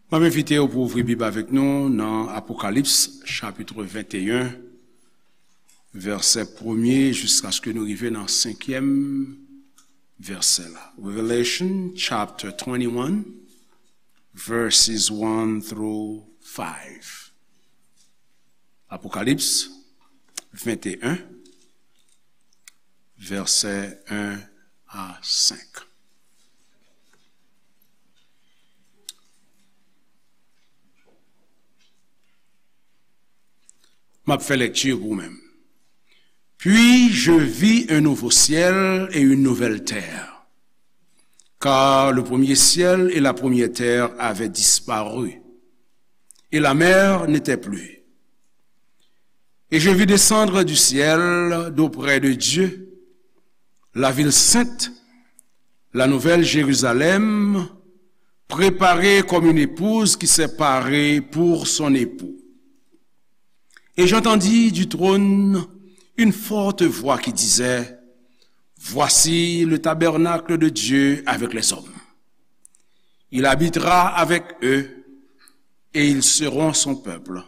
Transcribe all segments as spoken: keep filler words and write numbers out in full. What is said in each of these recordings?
M ap envite w pou w ouvri Bib avèk nou nan Apokalips, chapit venteyen, vèsè premye, jiskaske nou rive nan senkyèm vèsè la. Revelation chapter twenty-one, verses one through five. Apokalips venteyen, vèsè en a senk. M ap fè lekti pou ou menm. Puis je vis un nouveau ciel et une nouvelle terre, car le premier ciel et la première terre avaient disparu, et la mer n'était plus. Et je vis descendre du ciel, d'auprès de Dieu, la ville sainte, la nouvelle Jérusalem, préparée comme une épouse qui s'est parée pour son époux. Et j'entendis du trône une forte voix qui disait, Voici le tabernacle de Dieu avec les hommes. Il habitera avec eux, et ils seront son peuple.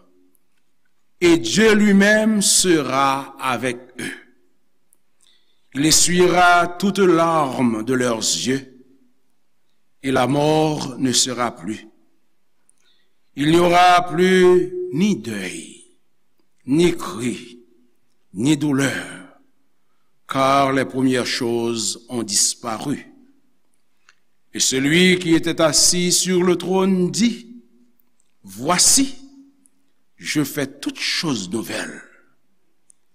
Et Dieu lui-même sera avec eux. Il essuiera toute larme de leurs yeux, et la mort ne sera plus. Il n'y aura plus ni deuil, ni cri, ni douleur, car les premières choses ont disparu. Et celui qui était assis sur le trône dit, Voici, je fais toutes choses nouvelles.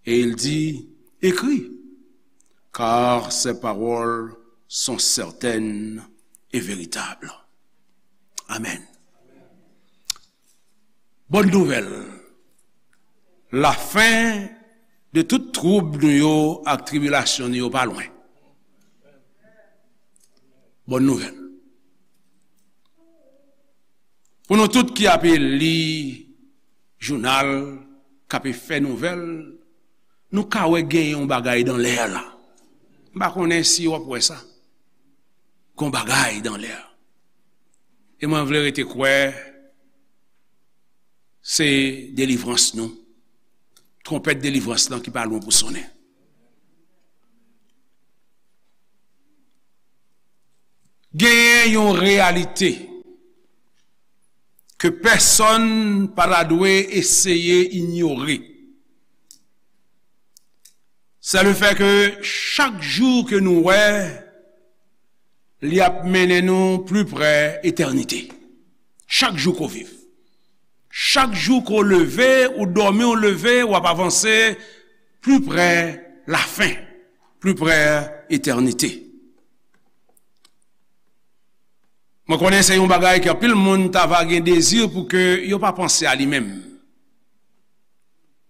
Et il dit, Écris, car ces paroles sont certaines et véritables. Amen. Bòn nouvèl. Lafen de tout twoub nou yo ak tribilasyon nou yo pa lwen. Bòn nouvèl. Pou nou tout ki ape li jounal, k ape fè nouvèl, nou ka wè gen yon bagay dan lè la. M pa konnen si w ap wè sa. Gon bagay dan lè. E mwen vle rete kwè se delivrans nou. Twonpèt delivrans lan ki pa lwen pou sonnen. Genyen yon reyalite ke pèsonn pa ta dwe eseye inyore. Se le fè ke chak jou ke nou wè, li ap mennen nou pli pre etènite. Chak jou ke w viv. Chak jou ke w leve, ou dòmi, ou leve, w ap avanse pli pre lafen, pli pre etènite. Mwen konnen se yon bagay ke anpil moun ta va gen dezi pou ke yo pa panse a li menm.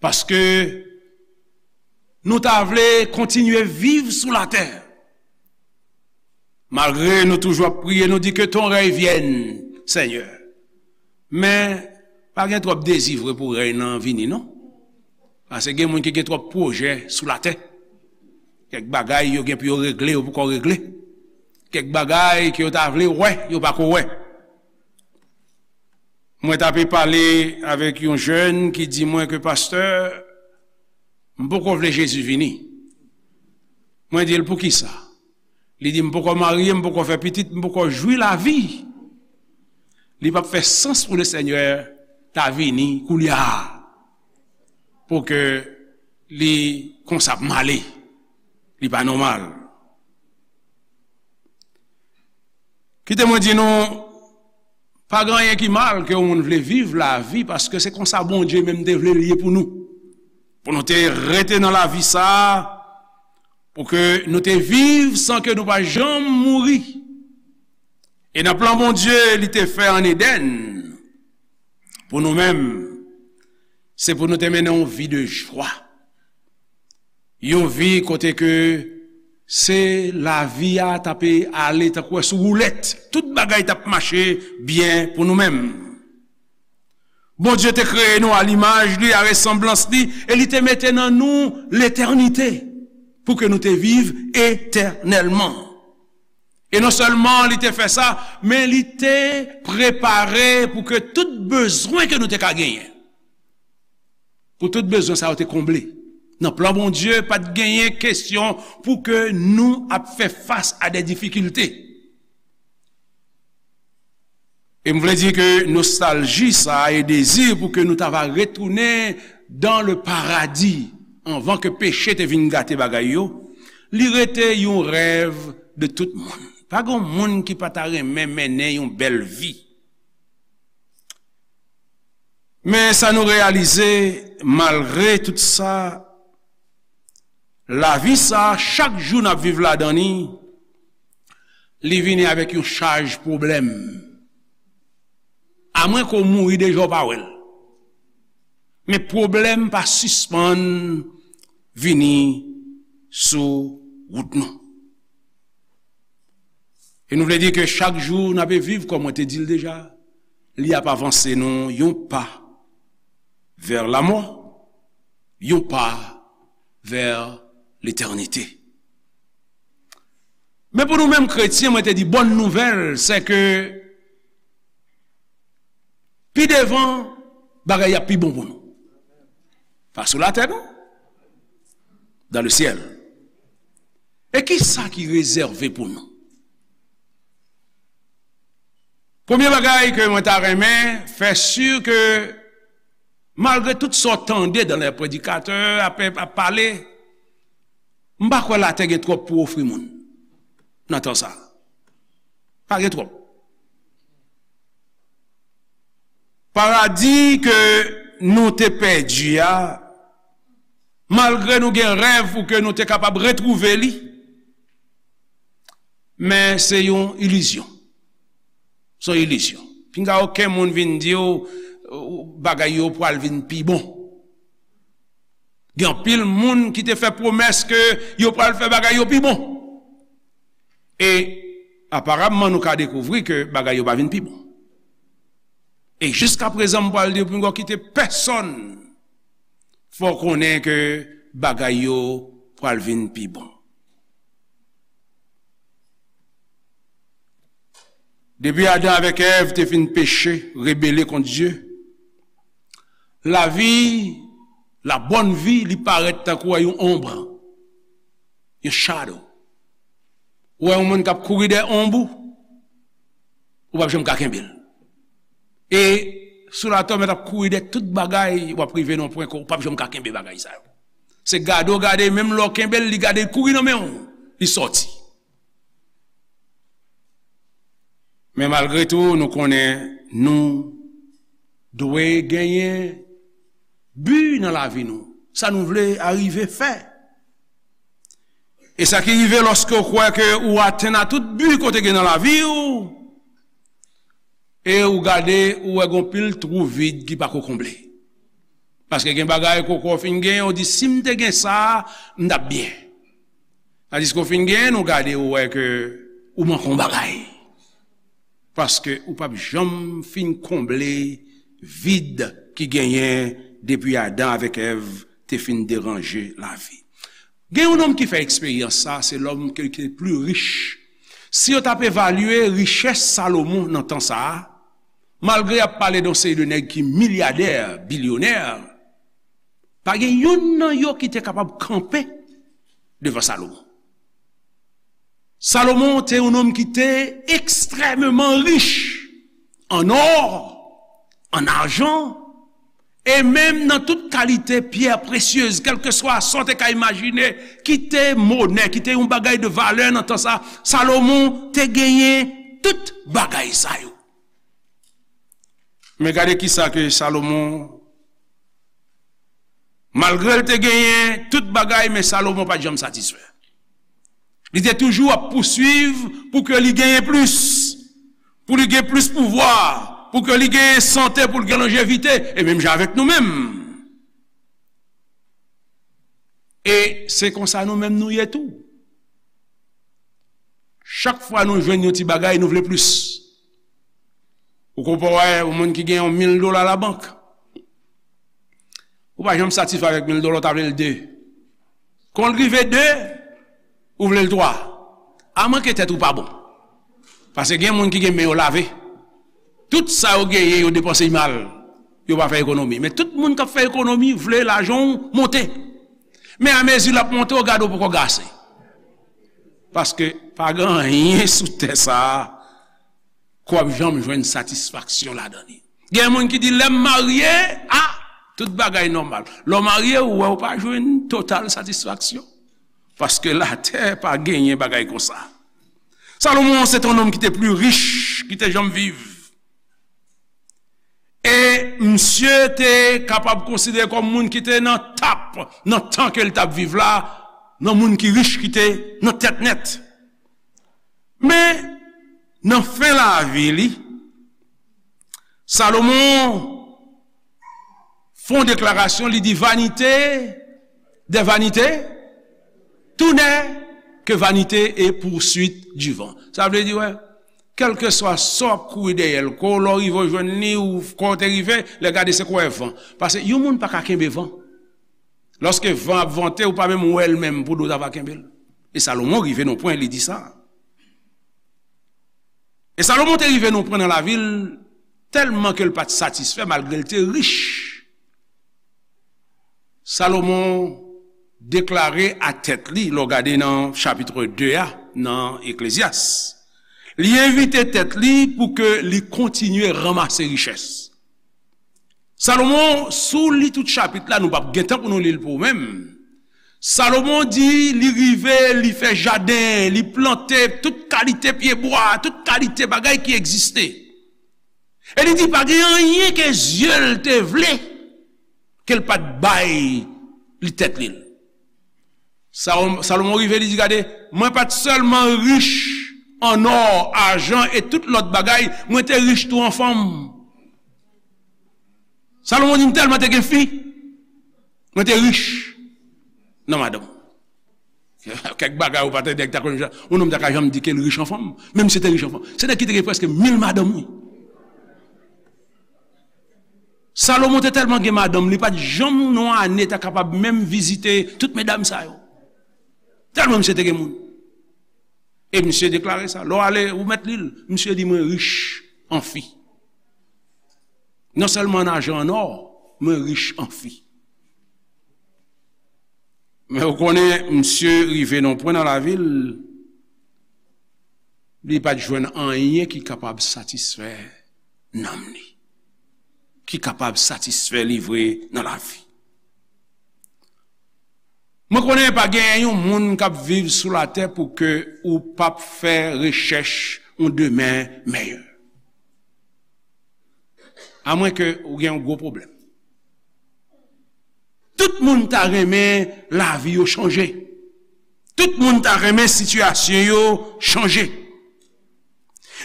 Paske nou ta vle kontinye viv sou latè. Malgre nou toujou ap priye, nou di, Que ton règne vienne, Seigneur. Men, pa gen twòp dezi vre pou rèy nan vini, non. Paske gen moun ki gen twòp pwojè sou latè. Kèk bagay yo gen pou yo regle, yo poko regle. Kèk bagay ke yo ta vle wè, yo pako wè. Mwen t ape pale avèk yon jèn ki di mwen ke, Pastè, m poko vle Jezi vini. Mwen di l, Poukisa? Li di, M poko marye, m poko fè pitit, m poko jwi lavi. Li p ap fè sans pou Lesenyè ta vini koulye a, pou ke li konsa ap male. Li pa nòmal. Kite mwen di nou, pa gen anyen ki mal ke yon moun vle viv lavi, paske se konsa Bondye menm te vle l ye pou nou. Pou nou te rete nan lavi sa a, pou ke nou te viv san ke nou pa janm mouri. E nan plan Bondye li te fè ann Edenn, pou nou menm, se pou nou te mennen yon vi de jwa. Yon vi kote ke se lavi a t ape ale tankou wè sou woulèt. Tout bagay t ap mache byen pou nou menm. Bondye te kreye nou a limaj li, a resanblans li, e li te mete nan nou letènite, pou ke nou te viv etènèlman. E non sèlman li te fè sa, men li te prepare pou ke tout bezwen ke nou te ka genyen, pou tout bezwen sa yo te konble. Nan plan Bondye, pa t genyen kesyon pou ke nou ap fè fas a de difikilte. E m vle di ke nostalji sa a e dezi pou ke nou ta va retounen dans le paradis anvan ke peche te vin gate bagay yo, li rete yon rèv de tout moun. Pa gen moun ki pa ta renmen mennen yon bèl vi. Men sa nou reyalize, malgre tout sa, lavi sa, chak jou n ap viv ladan li, li vini avèk yon chaj pwoblèm. Amwen ke w mouri deja w pa wè l. Men pwoblèm pa sispann vini sou wout nou. E nou vle di ke chak jou n ape viv, kòm mwen te di l deja, li ap avanse nou yon pa vè lamò, yon pa vè letènite. Men pou nou menm kretyen, mwen te di, bòn nouvèl, se ke pi devan, bagay ap pi bon pou nou. Pa sou latè, non. Dans le ciel. E ki sa ki rezève pou nou? Premye bagay ke mwen ta renmen fè si ke, malgre tout sa w tande dans les predikatè ap, ap pale, m pa kwè latè gen twòp pou ofri moun nan tan sa. Pa gen twòp. Paradi ke nou te pèdi a, malgre nou gen rèv pou ke nou te kapab retwouve li, men se yon ilizyon. Se yon ilizyon. Pinga okenn moun vin di w, ou, bagay yo pral vin pi bon. Gen anpil moun ki te fè pwomès ke yo pral fè bagay yo pi bon. E aparamman, nou ka dekouvri ke bagay yo pa vin pi bon. E jiskaprezan, m pral di w, pinga w kite pèsonn fè w konnen ke bagay yo pral vin pi bon. Depi Adan avèk Èv te fin peche, rebele kont Dye, lavi, la bòn vi, li parèt tankou yon onb, yon shadow. Ou wè yon moun k ap kouri dèyè onb ou, ou p ap janm ka kenbe l. E sou latè, w mèt ap kouri dèyè tout bagay, w ap rive nan yon pwen ke w p ap janm ka kenbe bagay sa yo. Se gade w gade, menm lè w kenbe l, li gade, li kouri nan men w, li sòti. Men malgre tou, nou konnen nou dwe genyen bi nan lavi nou. Sa nou vle arive fè. E sa ki rive lòske w kwè ke ou atenn a tout bi ke w te gen nan lavi w, e ou gade, ou wè gon pil twou vid ki pako konble. Paske gen bagay ke w kwè w fin genyen, ou di, "Si m te gen sa, m t ap byen." Tandiske w fin genyen, ou gade, ou wè ke ou manke yon bagay. Paske ou p ap janm fin konble vid ki genyen depi Adan avèk Èv te fin deranje lavi. Gen yon nonm ki fè eksperyans sa, se lòm ke, ki te pli rich. Si yo t ap evalye richès Salomon nan tan sa a, malgre y ap pale de yon seri de nèg ki milyadè, bilyonè, pa gen youn nan yo ki te kapab kanpe devan Salomon. Salomon te yon nonm ki te ekstrèmeman rich an ò, an ajan, e menm nan tout kalite pyè presyez, kèlkeswa sa w te ka imajine, ki te monè, ki te yon bagay de valè nan tan sa, Salomon te genyen tout bagay sa yo. Men gade kisa ke Salomon, malgre l te genyen tout bagay, men Salomon pa t janm satisfè. Li te toujou ap pouswiv pou ke li genyen plis, pou li gen plis pouvwa, pou ke li genyen sante, pou li gen lonjevite, e menm jan avèk nou menm. E se konsa nou menm nou ye tou. Chak fwa nou jwenn yon ti bagay, nou vle plis. Ou konpè wè yon moun ki gen yon mil dola labank. Ou pa janm satisfè avèk mil dola, ou ta vle l de. Kon l rive de, ou vle l twa. A mwen ke tèt ou pa bon. Paske gen moun ki gen men yo lave. Tout sa yo genyen, yo depanse l mal. Yo pa fè ekonomi. Men tout moun k ap fè ekonomi vle lajan w monte. Men amezi l ap monte, w gade w poko gase. Paske pa gen anyen sou tè sa a ke w ap janm jwenn satisfaksyon ladan li. Gen moun ki di, "Lè m marye, a, tout bagay nòmal." Lè w marye, ou wè w pa jwenn total satisfaksyon. Paske latè pa genyen bagay konsa. Salomon se te yon nonm ki te pli rich ki te janm viv. E misye te kapab konsidere kòm moun ki te nan top, nan tan ke l t ap viv la, nan moun ki rich ki te nan tèt nèt. Men, nan fen lavi li, Salomon fè yon deklarasyon, li di, "Vanité des vanités, tout n'est que vanité et poursuite du vent." Sa vle di, wè, kèlkeswa sa w ap kouri dèyè l, kou lè w rive w jwenn li, ou kou w te rive, lè gade se kou w wè van. Paske yon moun pa ka kenbe van. Lòske van ap vante, ou pa menm wè l menm pou do ta va kenbe l. E Salomon rive nan pwen, li di sa. E Salomon te rive nan pwen nan lavi l, tèlman ke l pa t satisfè, malgre l te rich. Salomon deklare a tèt li, lè w gade nan chapit de a, nan Eklezyas, li envite tèt li pou ke li kontinye ranmase richès. Salomon, si w li tout chapit la, nou p ap gen tan pou nou li l pou ou menm. Salomon di, li rive, li fè jaden, li plante tout kalite pyebwa, tout kalite bagay ki egziste. E li di, pa gen anyen ke zye l te vle, ke l pa t bay li tèt li l. Sa-, Salomon rive, li di, "Gade, mwen pa t sèlman rich an ò, ajan e tout lòt bagay, mwen te rich tou an fanm." Salomon di, "M tèlman te gen fi, mwen te rich nan madanm." Kèk bagay ou pa tande, nèg ta konn, yon nonm ta ka janm di ke l rich an fanm, menm si te rich an fanm. Se nèg ki te gen prèske mil madanm, wi. Salomon te tèlman gen madanm, li pa t janm nan yon ane ta kapab menm vizite tout medam sa yo. Tèlman misye te gen moun. E misye deklare sa. Lè w ale, ou mèt li l. Misye di, "Mwen rich an fi. Non sèlman an ajan, an ò, mwen rich an fi." Men ou konnen, misye rive nan pwen nan lavi l, li pa t jwenn anyen ki kapab satisfè nanm li, ki kapab satisfè li vre nan lavi. Mwen konnen pa gen yon moun k ap viv sou latè pou ke ou p ap fè rechèch yon demen mèyè. Amwenke ou gen yon gwo pwoblèm. Tout moun ta renmen lavi yo chanje. Tout moun ta renmen sitiyasyon yo chanje.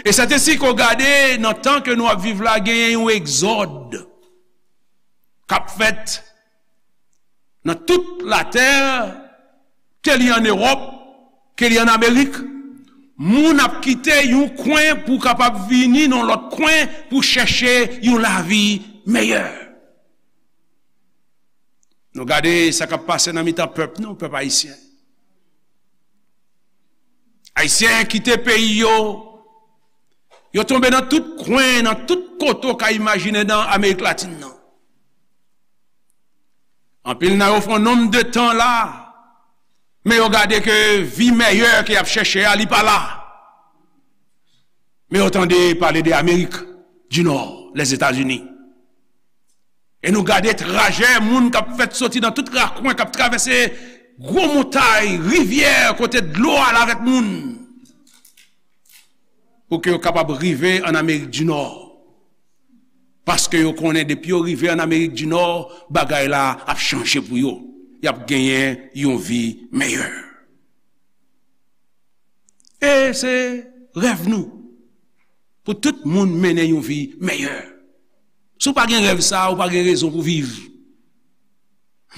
E sètesi ke w gade nan tan ke nou ap viv la, genyen yon egzòd k ap fèt nan tout latè, ke li ann Ewòp, ke li ann Amerik. Moun ap kite yon kwen pou kapab vini nan lòt kwen pou chèche yon lavi meyè. Nou gade sa k ap pase nan mitan pèp nou, pèp ayisyen. Ayisyen kite peyi yo, yo tonbe nan tout kwen, nan tout kote w ka imajine nan Amerik Latin nan. Anpil nan yo fè yon nonm de tan la, men yo gade ke vi meyè ke y ap chèche a, li pa la. Men yo tande pale de Amerik di Nò, Lèzetazini. E nou gade trajè moun k ap fèt soti nan tout rakwen, k ap travèse gwo montay, rivyè, kote dlo al avèk moun, pou ke yo kapab rive ann Amerik di Nò. Paske yo konnen depi yo rive ann Amerik di Nò, bagay la ap chanje pou yo. Y ap genyen yon vi meyè. E se rèv nou pou tout moun mennen yon vi meyè. Si w pa gen rèv sa a, ou pa gen rezon pou viv.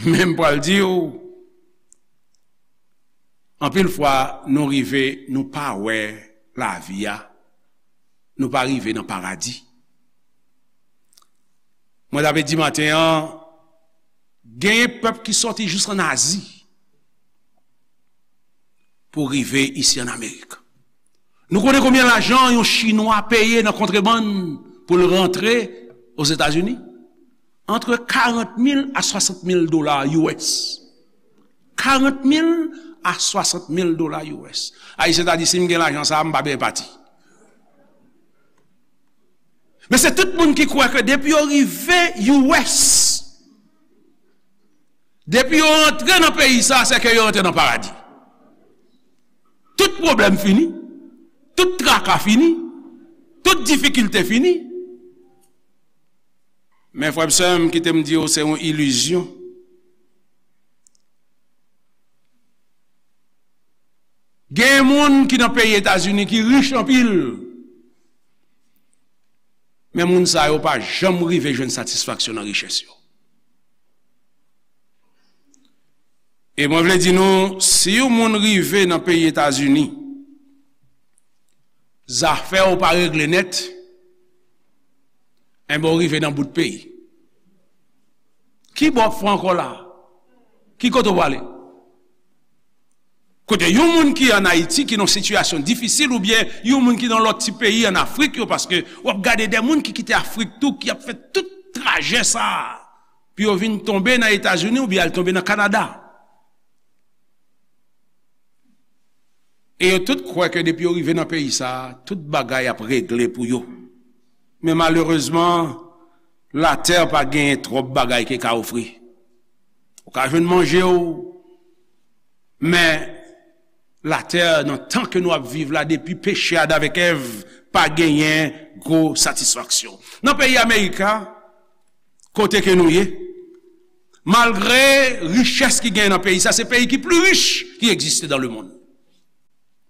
Men m pral di w, anpil fwa, nou rive, nou pa wè lavi a, nou pa rive nan paradi. Mwen t ap di maten an, genyen pèp ki sòti jis ann Azi pou rive isi ann Amerik. Nou konnen konbyen lajan yon Chinwa peye nan kontrebann pou l rantre Ozetazini? Antre karant mil a swasant mil dola U S. Karant mil a swasant mil dola U S. Ayisyen ta di, "Si m gen lajan sa a, m pa bezwen pati." Men se tout moun ki kwè ke depi yo rive U S, depi yo antre nan peyi sa a, se ke yo antre nan paradi. Tout pwoblèm fini, tout traka fini, tout difikilte fini. Men frè m, sè m, kite m di w, se yon ilizyon. Gen moun ki nan peyi Etazini ki rich anpil, men moun sa yo pa janm rive jwenn satisfaksyon nan richès yo. E mwen vle di nou, si yon moun rive nan peyi Etazini, zafè w pa regle nèt, enben w rive nan bout peyi. Ki bò w ap fè ankò la? Ki kote w prale? Kote yon moun ki ann Ayiti, ki nan sitiyasyon difisil, oubyen yon moun ki nan lòt ti peyi ann Afrik yo, paske w ap gade de moun ki kite Afrik tou, ki ap fè tout trajè sa a, pou yo vin tonbe nan Etazini oubyen al tonbe nan Kanada. E yo tout kwè ke depi yo rive nan peyi sa a, tout bagay ap regle pou yo. Men malerezman, latè pa genyen twòp bagay ke ka ofri. Ou ka jwenn manje w, men latè, nan tan ke nou ap viv la, depi peche Adan avèk Èv, pa genyen gwo satisfaksyon. Nan peyi Amerika, kote ke nou ye, malgre richès ki genyen nan peyi sa, se peyi ki pli rich ki egziste dans le monde.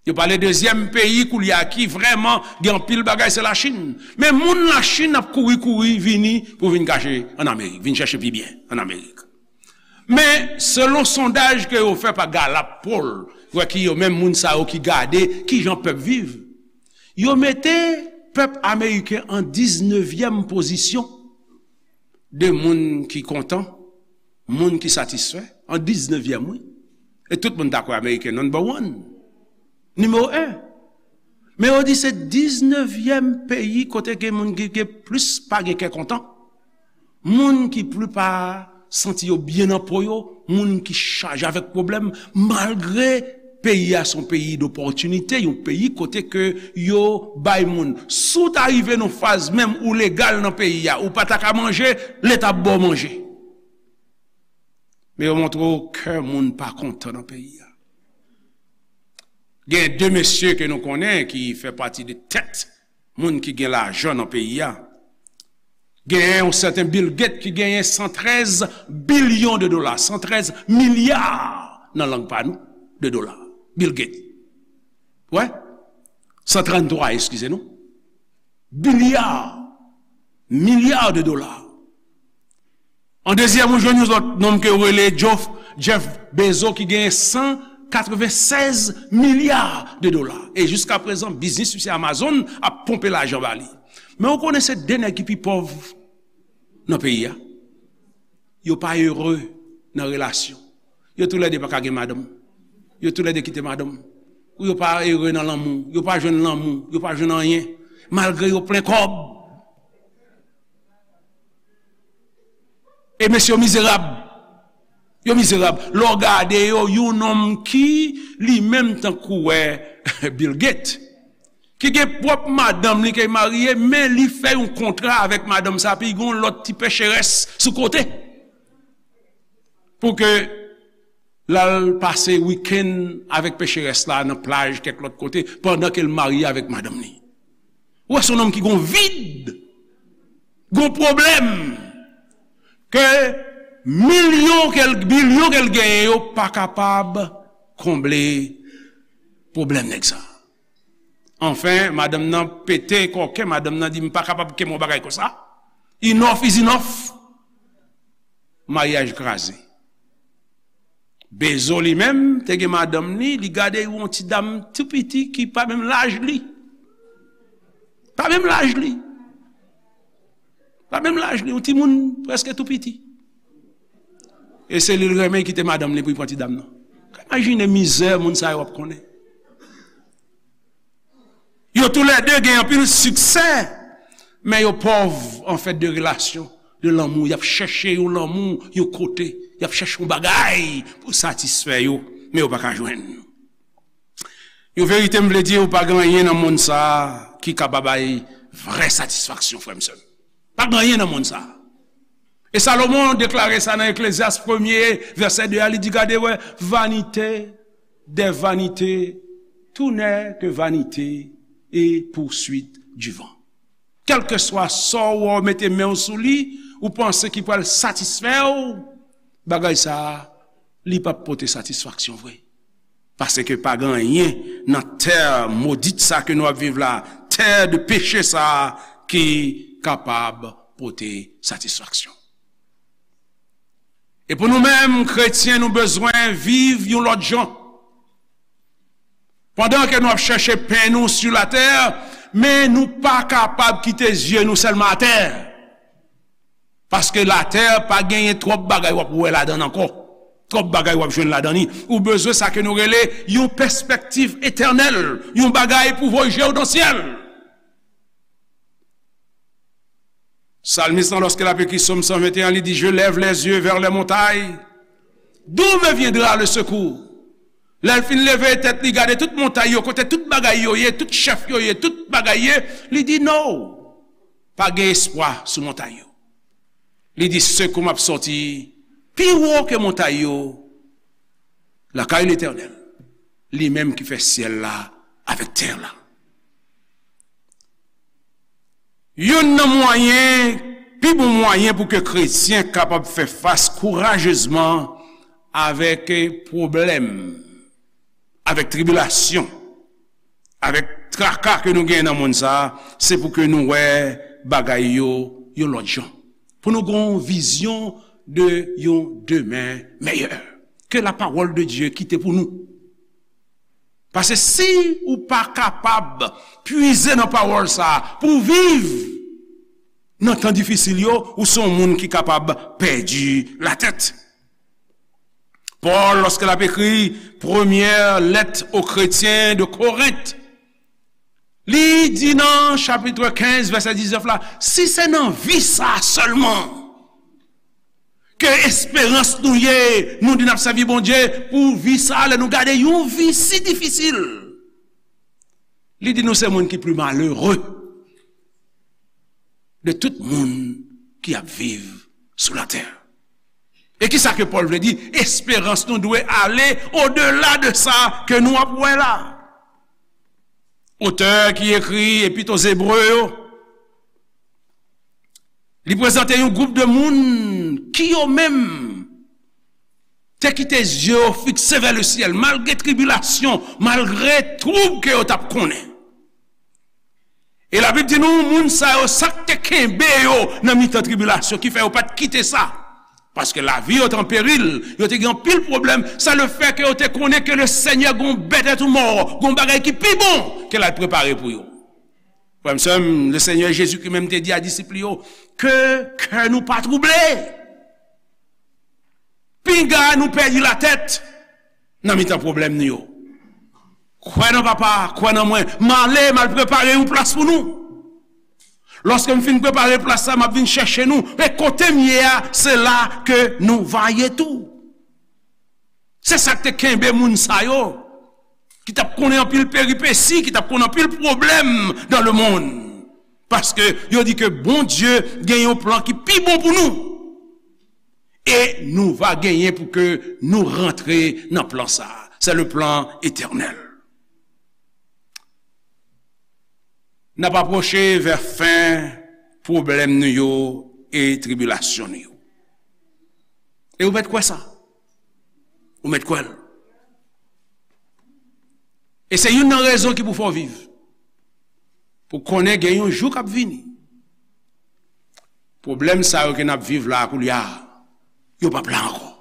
Yo pale dezyèm peyi koulye a ki vrèman gen anpil bagay, se Lachin. Men moun Lachin ap kouri, kouri vini pou vin kache ann Amerik, vin chèche pi byen ann Amerik. Men selon sondaj ke yo fè pa Gallup Poll, wè ki yo menm moun sa yo ki gade kijan pèp viv, yo mete pèp ameriken an diznevyèm pozisyon de moun ki kontan, moun ki satisfè, an diznevyèm, wi. E tout moun ta kwè ameriken number one, nimewo en. Men yo di se diznevyèm peyi kote gen moun ki gen plis pa gen kè kontan. Moun ki pli pa santi yo byen nan po yo, moun ki chaje avèk pwoblèm, malgre peyi a se yon peyi dopòtinite, yon peyi kote ke yo bay moun. Si w ta rive nan faz menm ou legal nan peyi a, ou pa ta ka manje, Leta ap ba w manje. Men yo montre w kè moun pa kontan nan peyi a. Gen de mesye ke nou konnen ki fè pati de tèt moun ki gen lajan nan peyi a. Genyen yon sèten Bill Gates ki genyen san trèz bilyon de dola, san trèz milya nan lang pa nou, de dola. Bill Gates. Wè? San tranntwa, eskize nou. Bilya, milya de dola. An dezyèm, ou jwenn yon lòt nonm ke yo rele Jeff, Jeff Bezos ki genyen san katrevennsèz milya de dola. E jiska prezan, biznis misye Amazon ap ponpe lajan ba li. Men ou konnen se de nèg ki pi pòv nan peyi a. Yo pa ere nan relasyon. Yo toulède pa ka gen madanm. Yo toulède kite madanm. Ou yo pa ere nan lanmou. Yo pa jwenn lanmou. Yo pa jwenn anyen. Malgre yo plen kòb. E mesye yo mizerab. Yo mizerab. Lè w gade yo, yon nonm ki li menm tankou wè Bill Gates, ki gen pwòp madanm li ke l marye, men li fè yon kontra avèk madanm sa, epi gen yon lòt ti pecherès sou kote. Pou ke l al pase wikenn avèk pecherès la nan plaj kèk lòt kote, pandan ke l marye avèk madanm li. Ou wè, se yon nonm ki gon vid, gon pwoblèm, ke milyon ke l, bilyon ke l genyen yo pa kapab konble pwoblèm nèg sa. Anfen, madanm nan pete kòken, madanm nan di, "M pa kapab kenbe yon bagay konsa. Enough is enough." Maryaj kraze. Bezo li menm te gen madanm li, li gade yon ti dam tou piti ki pa menm laj li. Pa menm laj li. Pa menm laj li, yon timoun prèske tou piti. E se li l renmen, li kite madanm li pou li pran ti dam nan. Imajine mizè moun sa yo ap konnen. toulède gen anpil siksè, men yo pòv an fèt de relasyon, de lanmou. Y ap chèche yon lanmou yon kote, y ap chèche yon bagay pou satisfè yo, men yo pa ka jwenn. Yon verite m vle di, ou pa gen anyen nan monn sa a ki ka ba bay vrè satisfaksyon, frè m, sè m. Pa gen anyen nan monn sa a. E Salomon deklare sa nan Eklezyas premye, vèsè de a, li di, gade, wè, vanité des vanités, tout n'est que vanité et poursuite du vent. Kèlkeswa sa w wè w mete men w sou li, ou panse ki pral satisfè w, bagay sa a, li p ap pote satisfaksyon vre. Paske pa gen anyen nan tè modit sa ke nou ap viv la, tè de peche sa ki kapab pote satisfaksyon. E pou nou menm, kretyen, nou bezwen viv yon lòt jan. Pandan ke nou ap chèche pen nou sou latè, men nou pa kapab kite zye nou sèlman atè. Paske latè pa genyen twòp bagay w ap wè ladan l ankò. Twòp bagay w ap jwenn ladan li. Ou bezwen sa ke nou rele yon pèspektiv etènèl, yon bagay pou voye je w nan syèl. Salmis lan, lòske l ap ekri Sòm san venteyen, li di, je lève les yeux vers les montagnes. D'où me viendra le secours? Lè l fin leve tèt li, gade tout montay yo, kote tout bagay yo ye, tout chèf yo ye, tout bagay ye, li di, no, pa gen espwa sou montay yo. Li di, sekou m ap sòti pi wo ke montay yo, lakay Letènèl, li menm ki fè syèl la avèk tè la. Youn nan mwayen, pi bon mwayen pou ke kretyen kapab fè fas kourajezman avèk pwoblèm, avèk tribilasyon, avèk traka ke nou genyen nan monn sa a, se pou ke nou wè bagay yo yon lòt jan. Pou nou gen yon vizyon de yon demen meyè. Que la parole de Dieu kite pou nou. Paske si ou pa kapab pwize nan pawòl sa a pou w viv nan tan difisil yo, ou se yon moun ki kapab pèdi latèt. Pòl, lòske l ap ekri premyè lèt o kretyen de Korent, li di nan chapit kenz, vèsè diznèf la, si se nan vi sa a sèlman ke esperans nou ye, nou di n ap sèvi Bondye pou vi sa a, lè nou gade yon vi si difisil, li di nou se moun ki pli malere de tout moun ki ap viv sou latè. E ki sa ke Pòl vle di? Esperans nou dwe ale odela de sa ke nou ap wè la. Otè ki ekri Epit o Zebre yo, li prezante yon gwoup de moun ki yo menm te kite zye yo fikse vè le syèl, malgre tribilasyon, malgre twoub ke yo t ap konnen. E Labib di nou, moun sa yo, sa k te kenbe yo nan mitan tribilasyon, ki fè yo pa t kite sa. Paske lavi yo te an peril, yo te gen anpil pwoblèm, sa le fè ke yo te konnen ke le Senyè gon bèt èt ou mò, gon bagay ki pi bon ke l al prepare pou yo. Frè m, sè m, le Senyè Jezikri menm te di a disip li yo, ke kè nou pa twouble. Pinga nou pèdi latèt nan mitan pwoblèm nou yo. Kwè nan Papa, kwè nan mwen. M ale, m al prepare yon plas pou nou. Lòske m fin prepare plas la, m ap vin chèche nou. E kote m ye a, se la ke nou va ye tou. Se sa k te kenbe moun sa yo, ki t ap konnen anpil peripesi, ki t ap konnen anpil pwoblèm dans le monde. Paske yo di ke Bondye gen yon plan ki pi bon pou nou. E nou va genyen pou ke nou rantre nan plan sa a. C'est le plan éternel. N ap apwoche vè fen pwoblèm nou yo e tribilasyon nou yo. E ou mèt kwè sa. Ou mèt kwè l. E se youn nan rezon ki pou fè w viv. Pou konnen gen yon jou k ap vini. Pwoblèm sa yo ke n ap viv la koulye a, yo p ap la ankò.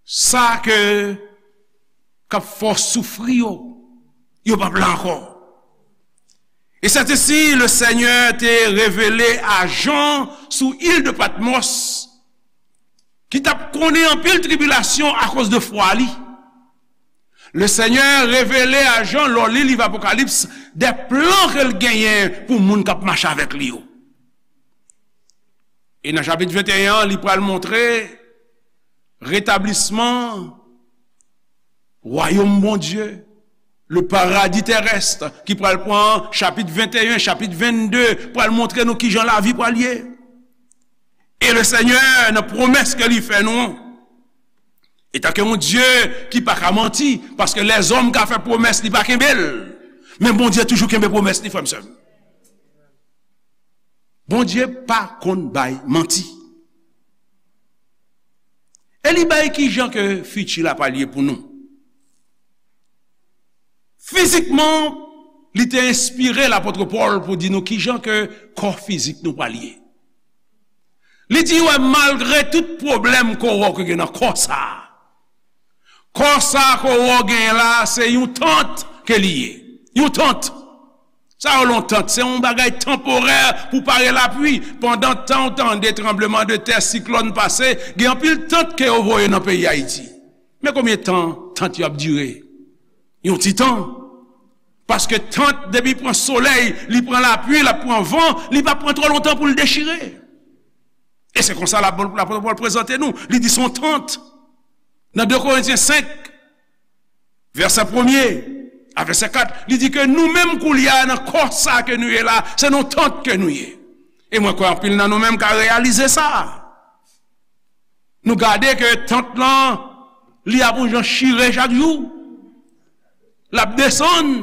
Sa ke k ap fè w soufri yo, yo p ap la ankò. E sètesi, le Senyè te revele a Jan sou il de Patmòs, ki t ap konnen anpil tribilasyon akoz de fwa li. Le Senyè revele a Jan, lè w li liv Apokalips, de plan ke l genyen pou moun k ap mache avèk li yo. E nan chapit venteyen an, li pral montre retablisman wayòm Bondye, le paradis terrestre, ki pral pran chapit venteyen, chapit vennde, pral montre nou kijan lavi pral ye. E le Senyè, nan pwomès ke li fè nou an, etanke yon Dye ki pa ka manti, paske lèzòm ka fè pwomès, li pa kenbe l. Men Bondye toujou kenbe pwomès li, frè m, sè m. Bondye pa konn bay manti. E li bay kijan ke fiti la pral ye pou nou. Fizikman, li te enspire lapot Pòl pou di nou kijan ke kò fizik nou pral ye. Li di, wè, malgre tout pwoblèm ke w wè w gen nan kò sa a, kò sa a ke w wè w genyen la a, se yon tant ke li ye. Yon tant. Sa yo, yon tant, se yon bagay tanporè pou pare lapli. Pandan tan w tande tranblemanntè, siklòn pase, gen anpil tant ke yo voye nan peyi Ayiti. Men konbyen tan tant yo ap dire? Yon ti tan. Paske tant, depi pran solèy, li pran lapli, l ap pran van, li pa pran twò lontan pou l dechire. E se konsa lapot Pòl prezante nou. Li di se yon tant. Nan de Korentyen senk, vèsè premye a vèsè kat, li di ke nou menm koulye a nan kò sa ke nou ye la, se nan yon tant ke nou ye. E mwen kwè anpil nan nou menm ka reyalize sa. Nou gade ke tant lan, li ap yon jan chire chak jou. L ap desann.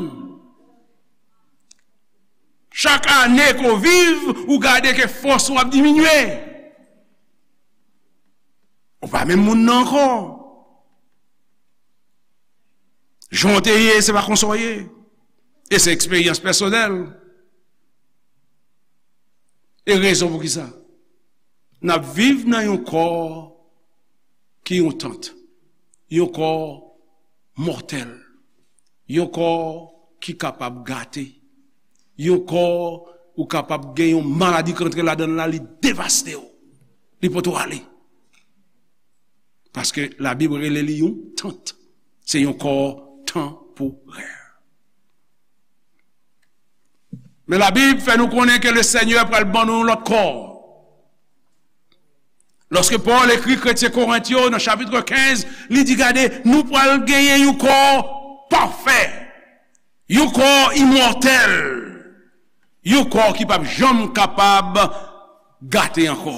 Chak ane ke w viv, ou gade ke fòs ou ap diminye. Ou pa menm moun nan ankò. Jan w te ye, se pa konsa w ye. E se eksperyans pèsonèl. E rezon pou ki sa? N ap viv nan yon kò ki yon tant, yon kò mòtèl, yon kò ki kapab gate, yon kò ou kapab gen yon maladi k rantre ladan l la, li devaste w, li pote w ale. Paske Labib rele li yon tant. Se yon kò tanporè. Men Labib fè nou konnen ke le Senyè pral ban nou yon lòt kò. Lòske Pòl ekri kretyen Korent yo nan chapit kenz, li di, gade, nou pral genyen yon kò pafè, yon kò imòtèl, yon kò ki p ap janm kapab gate ankò.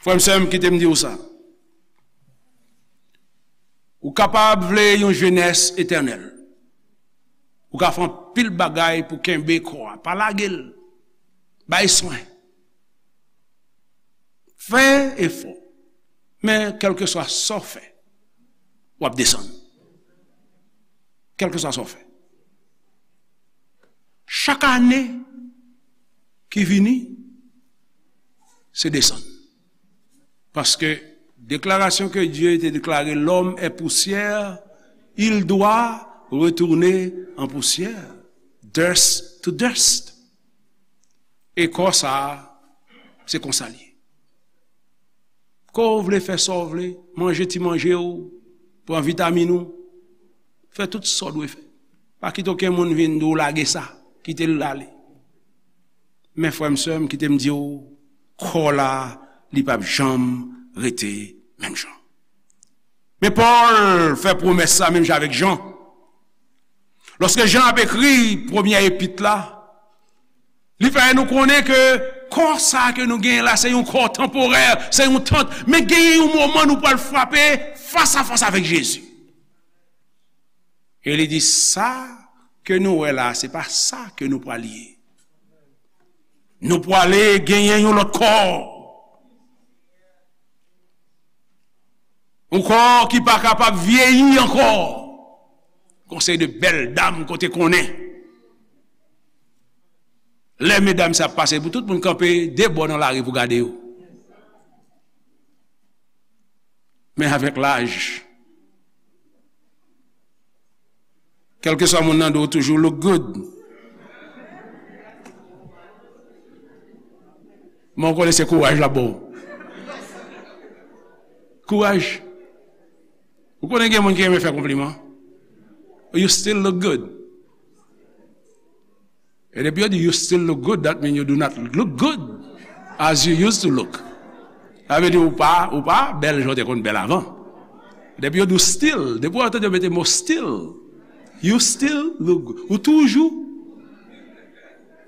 Frè m, sè m, kite m di w sa. Ou kapab vle yon jenès etènèl. Ou ka fè anpil bagay pou kenbe kò a. Pa lage l. Bay swen. Fè efò. Men kèlkeswa sa w fè, w ap desann. Kèlkeswa sa w fè. Chak ane ki vini, se desann. Paske deklarasyon ke Dye te deklare, l'homme est poussière, il doit retourner en poussière. Dust to dust. E kò sa a, se konsa l ye. Kò w vle fè sa w vle, manje ti manje w, pran vitamin ou, fè tout sa w dwe fè. Pa kite okenn moun vin di w lage sa, kite l ale. Men frè m, sè m, kite m di w, kò la, li p ap janm rete menm jan. Men Pòl fè pwomès sa menm jan avèk Jan. Lòske Jan ap ekri premyè epit la, li fè nou konnen ke kò sa ke nou genyen la, se yon kò tanporè, se yon tant, men genyen yon moman nou pral frape fas a fas avèk Jezi. E li di, sa ke nou wè la, se pa sa ke nou pral ye. Nou prale genyen yon lòt kò. Yon kò ki pa kapab vyeyi ankò. Konsèy de bèl dam kote konnen. Lè medam sa ap pase, pou tout moun kanpe de bò nan lari pou gade yo. Men avèk laj, kèlkeswa moun nan di w toujou look good. Men w konnen se kouraj l ap ba w. Kouraj. Ou konnen gen moun ki renmen fè konpliman. You still look good. E depi yo di you still look good, that mean you do not look good as you used to look. Sa vle di ou pa, ou pa bèl jan w te konn bèl avan. Depi yo di w still, depi w tande yo mete mo still, you still look good. Ou toujou,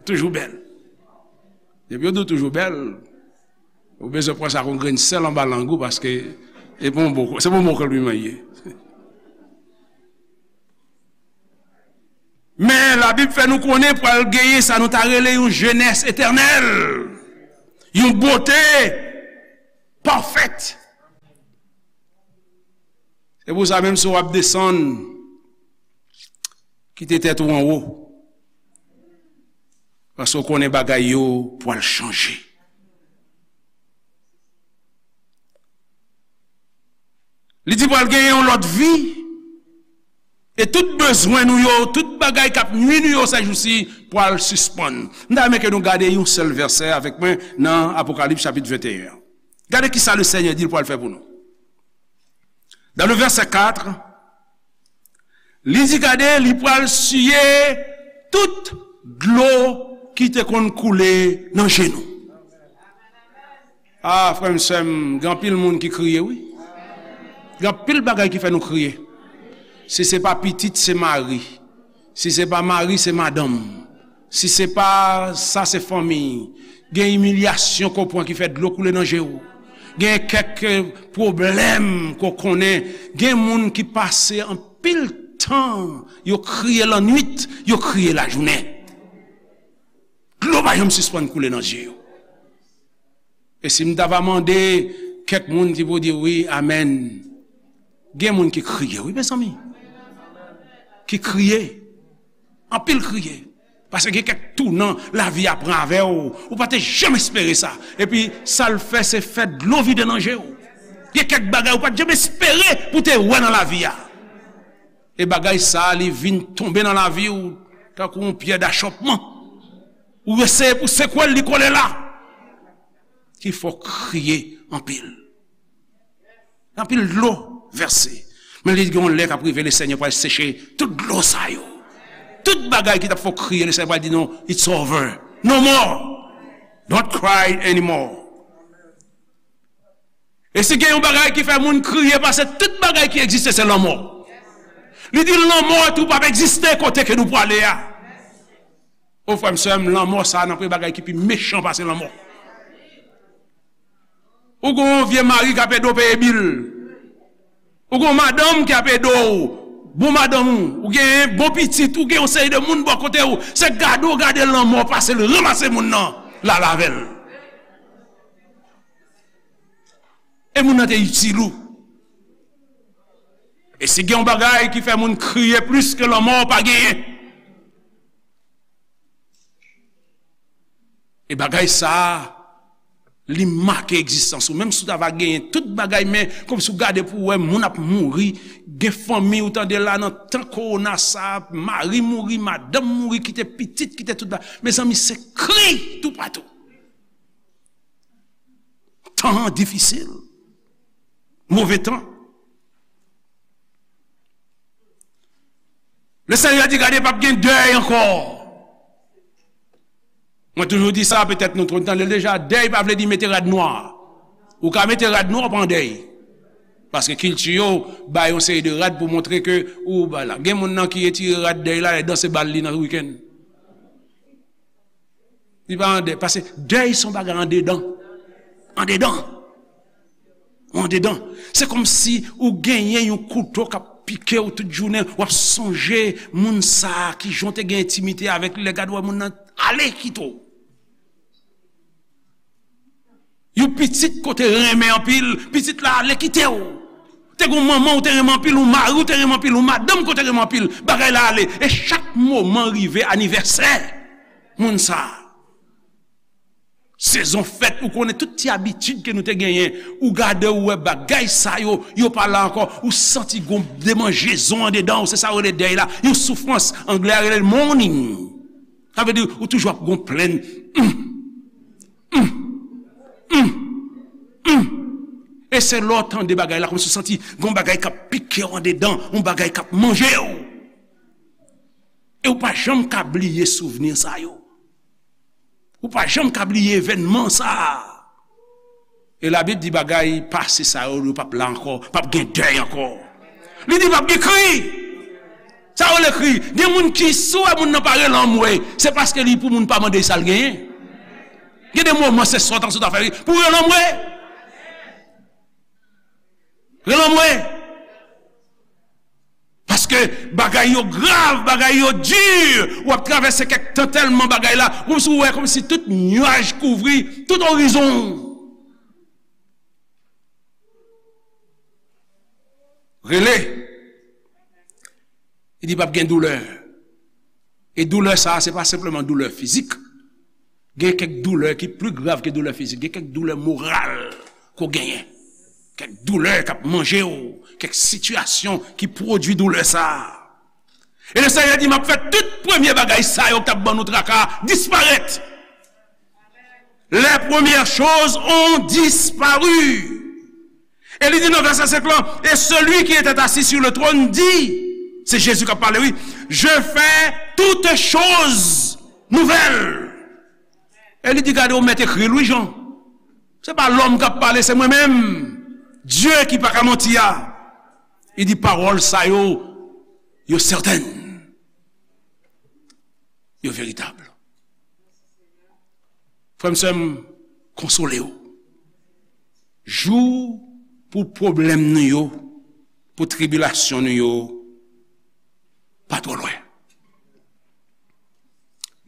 toujou bèl. Depi yo di w toujou bèl, ou bezwen pran sa kon grenn sèl anba lang ou, paske se pa yon bon, se pa yon bon konpliman li ye. Men Labib fè nou konnen pral genyen sa nou ta rele yon jenès etènèl, yon bote pafèt. Se pou sa, menm si w ap desann, kite tèt ou anwo, paske w konnen bagay yo pral chanje. Li di pral genyen yon lòt vi, e tout bezwen nou yo, tout bagay k ap nwi nou yo sèjousi pral sispann. M ta renmen ke nou gade yon sèl vèsè avèk mwen nan Apokalips chapit venteyen an. Gade ki sa Lesenyè di l pral fè pou nou. Dans le verset quatre, li di, gade, li pral siye tout dlo ki te konn koule nan je nou. Ah, frè m, sè m, gen anpil moun ki kriye, wi. Gen anpil bagay ki fè nou kriye. Si se pa pitit, se mari. Si se pa mari, se madanm. Si se pa sa, se fanmi. Gen imilyasyon ke w pran ki fè dlo koule nan je w. Gen kèk, eh, pwoblèm ke w konnen. Gen moun ki pase anpil tan, yo kriye lannwit, yo kriye lajounen. Dlo pa janm sispann koule nan je yo. E si m ta va mande kèk moun ki pou di wi, amèn. Gen moun ki kriye, wi, mezanmi. Ki kriye. Anpil kriye. Paske gen kèk tounan lavi a pran avè w. Ou pa te janm espere sa. Epi, sa l fè, se fè dlo vide nan je w. Gen kèk bagay ou pa t janm espere pou te wè nan lavi a. E bagay sa a, li vin tonbe nan lavi w tankou yon pyè dachòpman. Ou eseye pou sekwe l, li kole la. Ki fè w kriye anpil. Anpil dlo vèse. Men li gen yon lè k ap rive, Lesenyè pral seche tout dlo sa yo. Tout bagay ki t ap fè w kriye, Lesenyè pral di, non, it's over. No more. Don't cry anymore. E si gen yon bagay ki fè moun kriye pase tout bagay ki egziste, se lanmò. Li di lanmò tou p ap egziste kote ke nou prale a. O frè m, sè m, lanmò sa a nan premye bagay ki pi mechan pase lanmò. Ou gen yon vye mari k ap ede w peye bil. Ou gen yon madanm ki ap ede w. Bon madanm ou, ou gen bon pitit, ou gen yon seri de moun bò kote w. Se gade w gade lanmò pase l ranmase moun nan, l al avè l. E moun nan te itil ou. E si gen yon bagay ki fè moun kriye plis ke lanmò, pa genyen. E bagay sa a, li make egzistans ou. Menm si w ta va genyen tout bagay, men kòmsi w gade pou w wè moun ap mouri, gen fanmi ou tande la nan tan kowona sa a, mari mouri, madanm mouri, kite pitit, kite tout ba-, mezanmi, se kri toupatou. Tan an difisil. Move tan. Lesenyè di, gade, p ap gen dèy ankò. Mwen toujou di sa, petèt nou tande l deja, dèy pa vle di mete rad nwa. Ou ka mete rad nwa, ou pa an dèy. Paske kilti yo bay yon seri de rad pou montre ke ou ba la. Gen moun nan ki retire rad dèy la, lè danse bal li nan wikenn. Li pa an dèy, paske dèy se yon bagay andedan. Andedan. Andedan. Se kòmsi ou genyen yon kouto k ap pike w tout jounen, w ap sonje moun sa a, kijan w te gen entimite avèk li, lè gade w wè moun nan ale kite w. Yon pitit ke w te renmen anpil, pitit la ale kite w. Te gen yon manman ou te renmen anpil, yon mari ou te renmen anpil, yon madanm ke w te renmen anpil, bagay la ale. E chak moman rive anivèsè moun sa a. Sezon fèt, ou konnen tout ti abitid ke nou te genyen. Ou gade, ou wè bagay sa yo, yo pa la ankò. Ou santi gon demanjezon andedan ou, se sa yo rele dèy la. Yon soufrans, anglè a rele l mourning. Sa vle di, ou toujou ap gon plenn. Hum, hum, hum, hum. E se lè w tande bagay la, kòmsi w santi gon bagay k ap pike w andedan, yon bagay k ap manje w. E ou pa janm ka bliye souvni sa yo. Ou pa janm ka bliye evènman sa a. E Labib di bagay pase sa yo, yo p ap la ankò, p ap gen dèy ankò. Li di p ap gen kri. Sa yo rele kri. Gen moun ki, si w wè moun nan pa rele anmwe, se paske li pou moun pa mande sa l genyen. Gen de moman se sòt an sòt a fè pou rele anmwe. Rele anmwe. Paske bagay yo grav, bagay yo di, w ap travèse kèk tan tèlman bagay la, kòmsi w wè kòmsi tout nyaj kouvri tout orizon. Rele. Li di p ap gen doulè. E doulè sa a, se pa senpleman doulè fizik. Gen kèk doulè ki pli grav ke doulè fizik. Gen kèk doulè moral ke w genyen. Kèk doulè k ap manje w. Kèk sitiyasyon ki pwodui doulè sa a. E Lesenyè di, m ap fè tout premye bagay sa yo k t ap ban nou traka a disparèt. Les premières choses ont disparu. E li di nan vèsè senk lan, et celui qui était assis sur le trône dit, se Jezi k ap pale, wi, je fais toutes choses nouvelles. E li di, gade, ou mèt ekri l, wi, Jan. Se pa lòm k ap pale, se mwen menm. Dye ki pa ka manti a. Li di, pawòl sa yo, yo sètèn. Yo veritab. Frè m, sè m, konsole w. Jou pou pwoblèm nou yo, pou tribilasyon nou yo, pa twò lwen.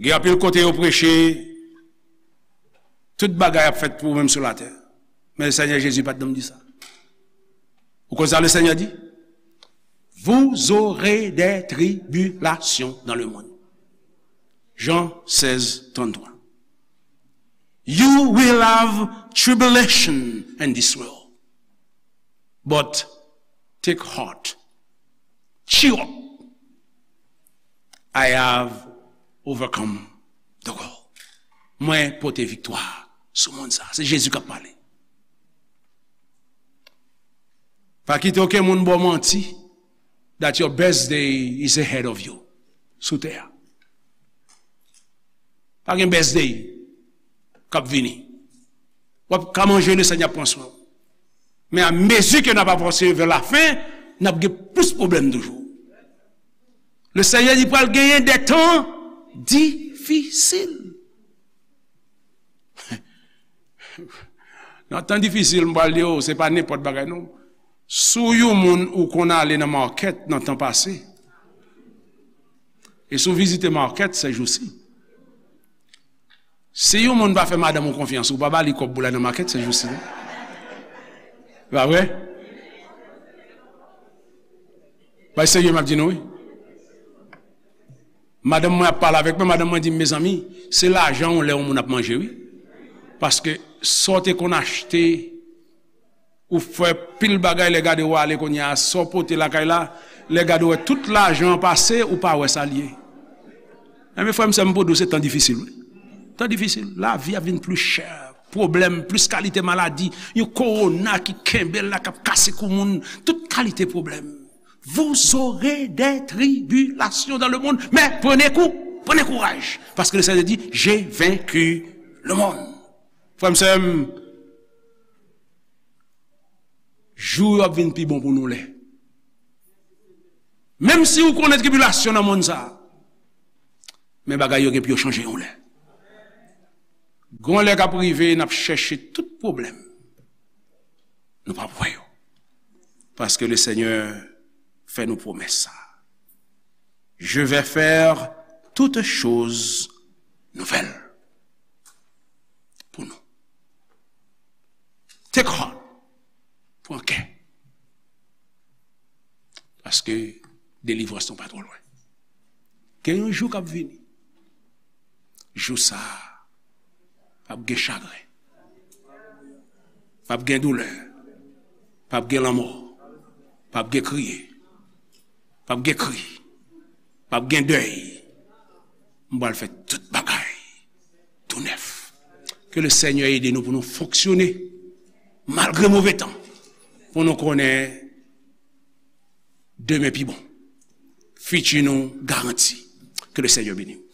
Gen anpil kote yo preche, tout bagay ap fèt pou ou menm sou latè. Men Senyè Jezi pa t janm di sa. Ou konn sa Lesenyè di? Vous aurez des tribulations dans le monde. Jean seize trente-trois. You will have tribulation in this world. But take heart. Cheer up. I have overcome the world. Mwen pote viktwa sou mond sa. Se Jezi k ap pale. Pa kite okenn moun ba w manti that your best day is ahead of you sou tè a. Pa gen best day k ap vini. W ap ka manje, Lesenyè ap pran swen w. Men a mezi ke n ap avanse vè lafen, n ap gen plis pwoblèm toujou. Lesenyè di pral genyen de tan difisil. Nan tan difisil, m pral di w, se pa nenpòt bagay, non. Si w yon moun ou konn ale nan makèt nan tan pase, e si w vizite makèt sèjousi, si yon moun pa fè madanm ou konfyans, ou pa ba li kòb pou l al nan makèt sèjousi, non? Pa vre? Bay serye m ap di nou, wi. Madanm mwen ap pale avèk mwen, madanm mwen di m, mezanmi, se lajan w lè yon moun ap manje, wi. Paske sa w te konn achte, ou fè pil bagay, lè gade w ale kounye a, sa w pote lakay la, lè gade w wè tout lajan an pase, ou pa wè sa l ye. Enben, frè m, sè m, pou di w, se tan difisil, wi. Tan difisil. Lavi a vin pli chè. Pwoblèm, plis kalite maladi, yon kowona ki kenbe l la, k ap kase kou moun, tout kalite pwoblèm. Vous aurez des tribulations dans le monde, mais prenez cou-, prenez courage, parce que le Seigneur dit, j'ai vaincu le monde. Frè m, sè m, jou yo ap vin pi bon pou nou lè. Menm si ou konnen tribilasyon nan mond sa a, men bagay yo gen pou yo chanje yon lè. Gon lè k ap rive, n ap chèche tout pwoblèm. Nou p ap wè yo. Paske Lesenyè fè nou pwomès sa. Je vais faire toutes choses nouvelles. Pou nou. Take heart. Pran kè. Paske delivrans nou pa twò lwen. Gen yon jou k ap vini. Jou sa a, p ap gen chagren. P ap gen doulè. P ap gen lanmò. P ap gen kriye. P ap gen kri. P ap gen dèy. M pral fè tout bagay tou nèf. Ke Lesenyè ede nou pou nou fonksyone malgre move tan. Pou nou konnen demen pi bon. Fiti nou garanti. Que le Seigneur bénisse.